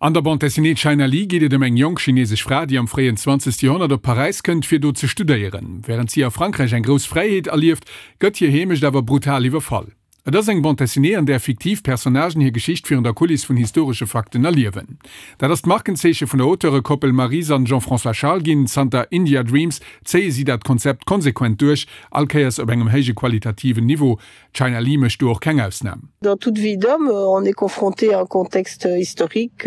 An der Bande dessinée China Lee geet et ëm eng jonk chinesesch Fra, déi am fréien 20. Joerhonnert op Paräis kënnt, fir do ze studéieren. Wärend si a Frankräich eng grouss Fräiheet erlieft, gëtt hir Heemecht awer brutal iwwerfall. Et ass eng Bande dessinée, an där fiktiv Personnagen hir Geschicht virun der Kuliss vun historesche Fakten erliewen. Dat ass d'Markenzeeche vun der Auteure-Koppel Maryse an Jean-François Charles ginn. Zanter India Dreams zéie si dat Konzept konsequent duerch, all Kéiers op engem héije qualitativen Niveau. China Lee mécht do och keng Ausnam. Dans toute vie d'homme, on est confronté à un contexte historique,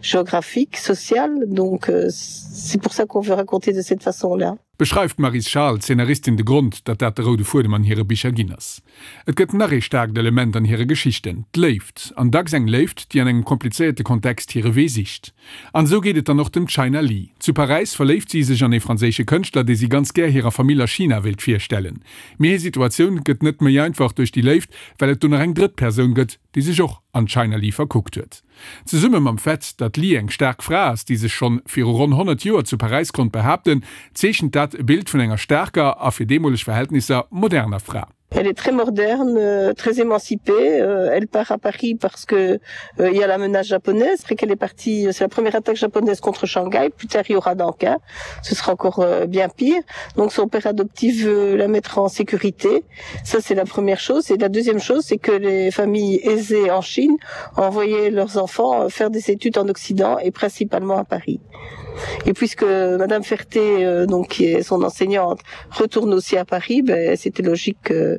géographique, social, donc c'est pour ça qu'on veut raconter de cette façon-là. Beschreift d'Maryse Charles, d'Zeenaristin, de Grond, datt dat de roude Fuedem an hire Bicher ginn ass. Et gëtt nach ee staarkt Element an hire Geschichten, d'Léift. An dacks eng Léift, déi an engem komplizéierte Kontext hire Wee sicht. An esou geet et dann och dem China Lee. Zu Paräis verléift si sech an ee franséische Kënschtler, dee si ganz gär hirer Famill a China wéilt virstellen. Mee hir Situatioun gëtt net méi einfach duerch déi Léift, well et do nach eng drëtt Persoun gëtt, déi sech och an d'China Lee verkuckt huet. Zesumme mam Fait, datt d'Lee eng staark Fra ass, déi sech schonn viru ronn 100 Joer zu Paräis konnt behaapten, zeechent dat e Bild vun enger staarker a fir deemoleg Verhältnisser moderner Fra. Elle est très moderne, très émancipée, elle part à Paris parce que il y a la menace japonaise, après qu'elle est partie, c'est la première attaque japonaise contre Shanghai, plus tard il y aura Nankin, ce sera encore euh, bien pire. Donc son père adoptif veut la mettre en sécurité. Ça c'est la première chose et la deuxième chose c'est que les familles aisées en Chine envoyaient leurs enfants euh, faire des études en Occident et principalement à Paris. Et puisque Madame Ferté euh, donc qui est son enseignante retourne aussi à Paris, ben c'était logique euh,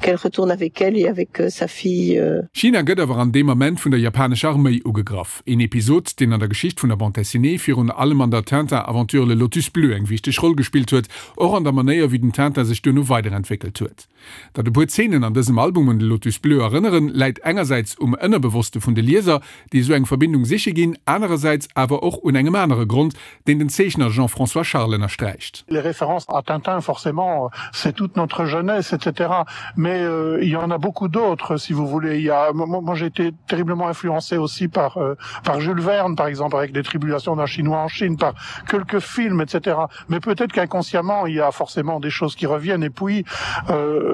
qu'elle retourne avec elle et avec euh, sa fille. Euh. China gëtt awer an deem Ament vun der japanescher Arméi ugegraff. Een Episod, deen an der Geschicht vun der Bande dessinée, virun allem an der Tintin-Aventure Le Lotus Bleu eng wichteg Roll gespillt huet, och an der Manéier wéi den Tintin sech duerno weiderentwéckelt huet. Datt e puer Zeenen an dësem Album un de Lotus Bleu erënneren, läit engersäits um Ënnerbewosste vun de Lieser, déi esou eng Verbindung siche ginn, anerersäits awer och un engem anere Grond, deen den Zeechner Jean-François Charles ënnersträicht. Les références à Tintin, forcément, c'est toute notre jeunesse, etc. Mais euh, il y en a beaucoup d'autres, si vous voulez. Il y a, moi, moi j'ai été terriblement influencé aussi par, euh, par Jules Verne, par exemple, avec les tribulations d'un Chinois en Chine, par quelques films, etc. Mais peut-être qu'inconsciemment, il y a forcément des choses qui reviennent. Et puis, euh,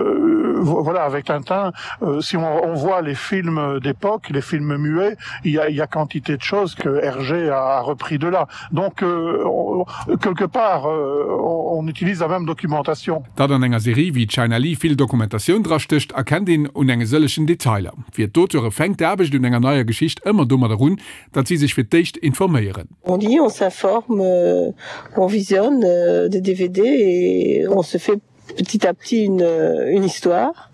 voilà, avec Tintin, euh, si on, on voit les films d'époque, les films muets, il y a, il y a quantité de choses que Hergé a, a repris de là. Donc, euh, on, quelque part, euh, on, on utilise la même documentation. Datt an enger Serie wéi China Lee vill Dokumentatioun drastécht, erkennt een un enge sëllegen Detailer. Fir d'Auteure fänkt d'Aarbecht un enger neier Geschicht ëmmer domadder un, datt si sech fir d'éischt informéieren. On lit, on s'informe, on visionne des DVD et on se fait petit à petit une, une histoire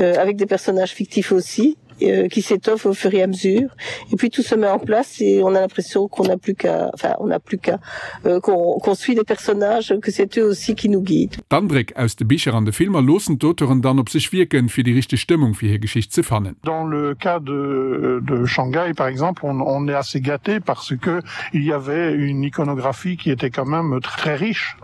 euh, avec des personnages fictifs aussi euh, qui s'étoffent au fur et à mesure et puis tout se met en place et on a l'impression qu'on n'a plus qu'à enfin on n'a plus qu'à euh, qu'on qu'on suit les personnages que c'est eux aussi qui nous guident. D'Andréck aus de Bicher an de Filmer loossen d'Auteuren dann op sech wierken, fir déi richteg Stëmmung fir hir Geschicht ze fannen. Dans le cas de, de Shanghai par exemple, on, on est assez gâté parce que il y avait une iconographie qui était quand même très riche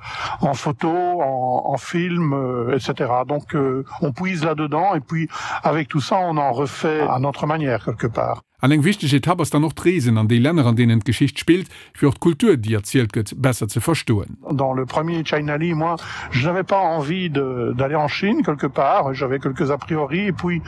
en photos, en, en films, euh, etc. Donc euh, on puise là-dedans et puis avec tout ça on en refait à notre manière quelque part. An eng wichteg Etapp ass dann och d'Reesen an déi Länner, an deenen d'Geschicht spillt, fir och d'Kultur, déi erzielt gëtt, besser ze verstoen. Dans le premier China Lee, moi, je n'avais pas envie d'aller en Chine quelque part, j'avais quelques a priori et puis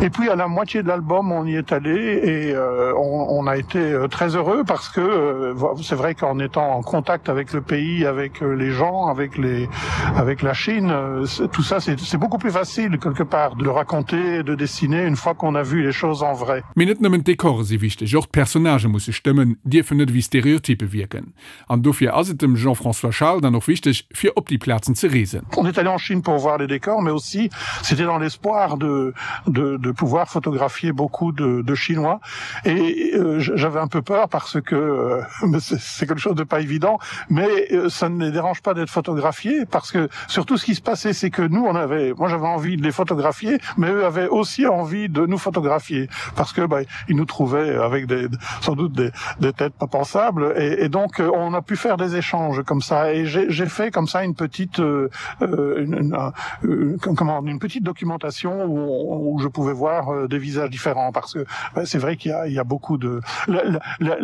et puis à la moitié de l'album on y est allé et euh, on, on a été euh, très heureux parce que euh, c'est vrai qu'en étant en contact avec le pays, avec euh, les gens, avec les avec la Chine, euh, tout ça c'est beaucoup plus facile quelque part de le raconter, de dessiner une fois qu'on a vu les choses en vrai. Mee net nëmmen d'Dekore si wichteg, och d'Personnagë musse stëmmen, dierfen net ewéi Stereotyppe wierken. An dofir ass et dem Jean-François Charles dann och wichteg, fir op déi Plazen ze reesen. On est allé en Chine pour voir les décors, mais aussi c'était dans l'espoir de, de, de pouvoir photographier beaucoup de, de Chinois. Et euh, j'avais un peu peur parce que euh, c'est quelque chose de pas évident, mais euh, ça ne les dérange pas d'être photographiés parce que surtout ce qui se passait, c'est que nous on avait, moi j'avais envie de les photographier, mais eux avaient aussi envie de nous photographier parce que bah, ils nous trouvaient avec des, sans doute des, des têtes pas pensables et, et donc euh, on a pu faire des échanges comme ça et j'ai fait comme ça une petite euh, euh une, une, une, comment une petite documentation où, on, où je pouvais voir euh, des visages différents parce que bah, c'est vrai qu'il y a, il y a beaucoup de la, la, la,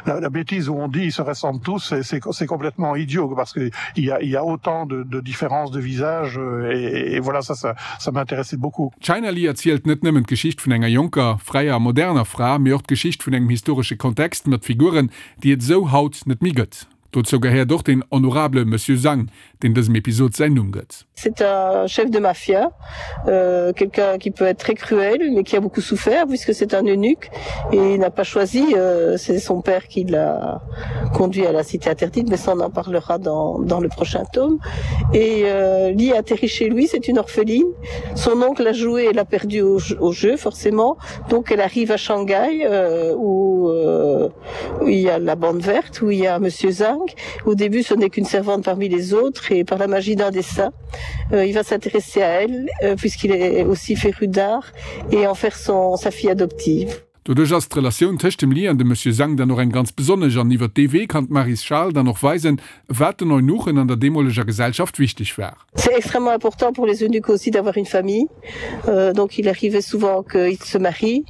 la, la bêtise où on dit ils se ressemblent tous c'est complètement idiot parce que il y a, il y a autant de, de différences de visages et, et voilà ça ça, ça m'intéressait beaucoup. China Lee erzielt net nëmmen d'Geschicht vun enger jonker, fräier a moderner. moderner Fra, mee och d'Geschicht vun engem historesche Kontext mat Figuren, déi et esou haut net méi gëtt. Dozou gehéiert och den honorable Monsieur Zhang, deen dësem Episod säin Numm gëtt. C'est un chef de mafia, euh, quelqu'un qui peut être très cruel, mais qui a beaucoup souffert puisque c'est un eunuque et il n'a pas choisi, euh, c'est son père qui l'a conduit à la cité interdite, mais ça on en parlera dans, dans le prochain tome. Et euh, Lee atterrit chez lui, c'est une orpheline. Son oncle a joué et l'a perdu au, au jeu forcément. Donc elle arrive à Shanghai euh, où, euh, où il y a la bande verte, où il y a monsieur Zhang. Au début, ce n'est qu'une servante parmi les autres et par la magie d'un dessin, euh, il va s'intéresser à elle euh, puisqu'il est aussi féru d'art et en faire son, sa fille adoptive. Doduerch ass d'Relatioun tëscht dem Li an dem Monsieur Zhang dann och eng ganz besonnesch an iwwer dee Wee kann d'Maryse Charles dann och weisen, wat den Eunuchen an der deemoleger Gesellschaft wichteg war. C'est extrêmement important pour les eunuques aussi d'avoir une famille. Euh, donc il arrivait souvent qu'ils se marient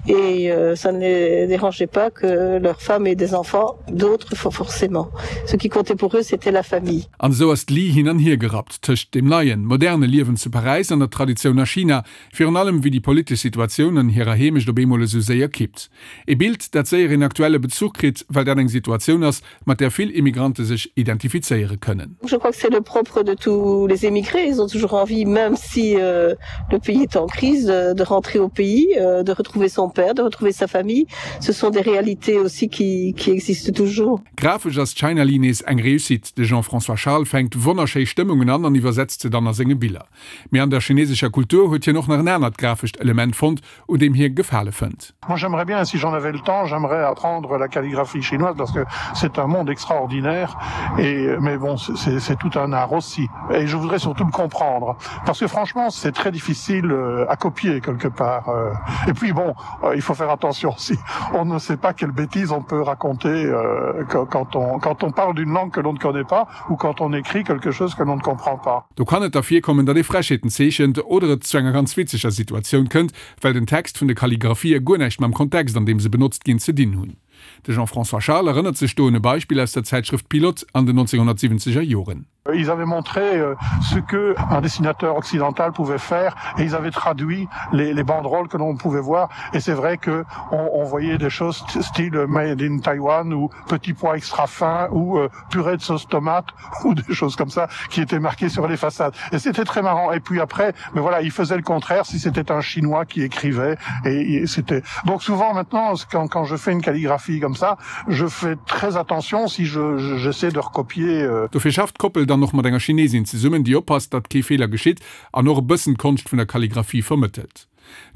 et euh, ça ne les dérangeait pas que leur femme ait des enfants, d'autres forcément. Ce qui comptait pour eux, c'était la famille. An esou ass d'Li hin an hier gerappt tëscht dem neien, moderne Liewen zu Paräis an der Traditioun a China, virun allem wéi déi politesch Situatioun an hirer Heemecht op eemol esou séier kippt. E Bild, dat séier een aktuelle Bezuch kritt, well dat eng Situatioun ass, mat där vill Immigrante sech identifizéiere kënnen. Je crois que c'est le propre de tous les émigrés, ils ont toujours envie, même si euh, le pays est en crise, de, de rentrer au pays, euh, de retrouver son père, de retrouver sa famille. Ce sont des réalités aussi qui, qui existent toujours. Grafesch ass China Lee nees eng Réussite. De Jean-François Charles fänkt wonnerschéi Stëmmungen an an iwwersetzt se dann a senge Biller. Mee an der chinesescher Kultur huet hien och nach en anert grafescht Element fonnt, un deem hie Gefale fënnt. Moi j'aimerais bien, si j'en avais le temps, j'aimerais apprendre la calligraphie chinoise parce que c'est un monde extraordinaire et mais bon c'est tout un art aussi et je voudrais surtout le comprendre parce que franchement c'est très difficile euh, à copier quelque part euh. et puis bon euh, il faut faire attention si on ne sait pas quelle bêtise on peut raconter quand on quand on parle d'une langue que l'on ne connaît pas ou quand on écrit quelque chose que l'on ne comprend pas. Do kann et da virkommen, datt ee Frechheeten zeechent oder et zu enger ganz witzeger Situatioun kënnt, well den Text vun de Kalligraphië guer näischt mam Kontext, an deem se benotzt ginn, ze dinn hunn. De Jean-François Charles erënnert sech do un e Beispill aus der Zäitschrëft Pilote an den 1970er Joren. Ils avaient montré euh, ce que un dessinateur occidental pouvait faire et ils avaient traduit les, les banderoles que l'on pouvait voir et c'est vrai que on, on voyait des choses style made in Taiwan ou petit pois extra fin ou euh, purée de sauce tomate ou des choses comme ça qui étaient marquées sur les façades et c'était très marrant et puis après mais voilà il faisait le contraire si c'était un chinois qui écrivait et, et c'était donc souvent maintenant quand, quand je fais une calligraphie comme ça je fais très attention si je j'essaie de recopier euh Dofir schafft d'Koppel dann och mat enger Chinesin zesummen, déi oppasst, datt kee Feeler geschitt an och e bëssen d'Konscht vun der Kalligraphie vermëttelt.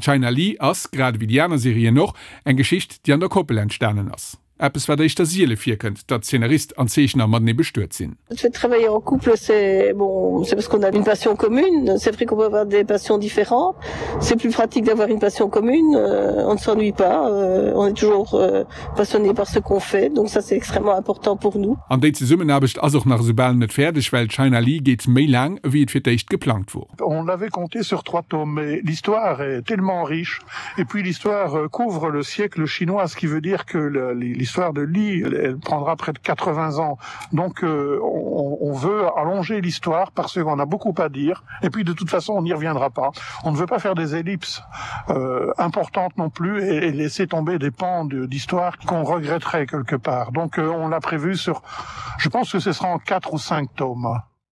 China Lee ass, grad ewéi déi aner Serien och, eng Geschicht, déi an der Koppel entstanen ass. Eppes wat éischter siele virkënnt, datt Zeenarist an Zeechner matenee bestuet sinn. Le fait de travailler en couple, c'est bon, c'est parce qu'on a une passion commune. C'est vrai qu'on peut avoir des passions différentes. C'est plus pratique d'avoir une passion commune. Euh, on ne s'ennuie pas. Euh, on est toujours euh, passionné par ce qu'on fait. Donc ça, c'est extrêmement important pour nous. An déi Zesummenaarbecht ass och nach esou bal net fäerdeg, well China Lee geet méi laang, ewéi et fir d'éischt geplangt wor. On l'avait compté sur trois tomes, mais l'histoire est tellement riche et puis l'histoire euh, couvre le siècle chinois, ce qui veut dire que l'histoire de Li elle, elle prendra près de 80 ans. Donc euh, on, on veut allonger l'histoire parce qu'on a beaucoup à dire et puis de toute façon on n'y reviendra pas. On ne veut pas faire des ellipses euh, importantes non plus et, et laisser tomber des pans d'histoire qu'on regretterait quelque part. Donc euh, on l'a prévu sur je pense que ce sera en quatre ou cinq tomes.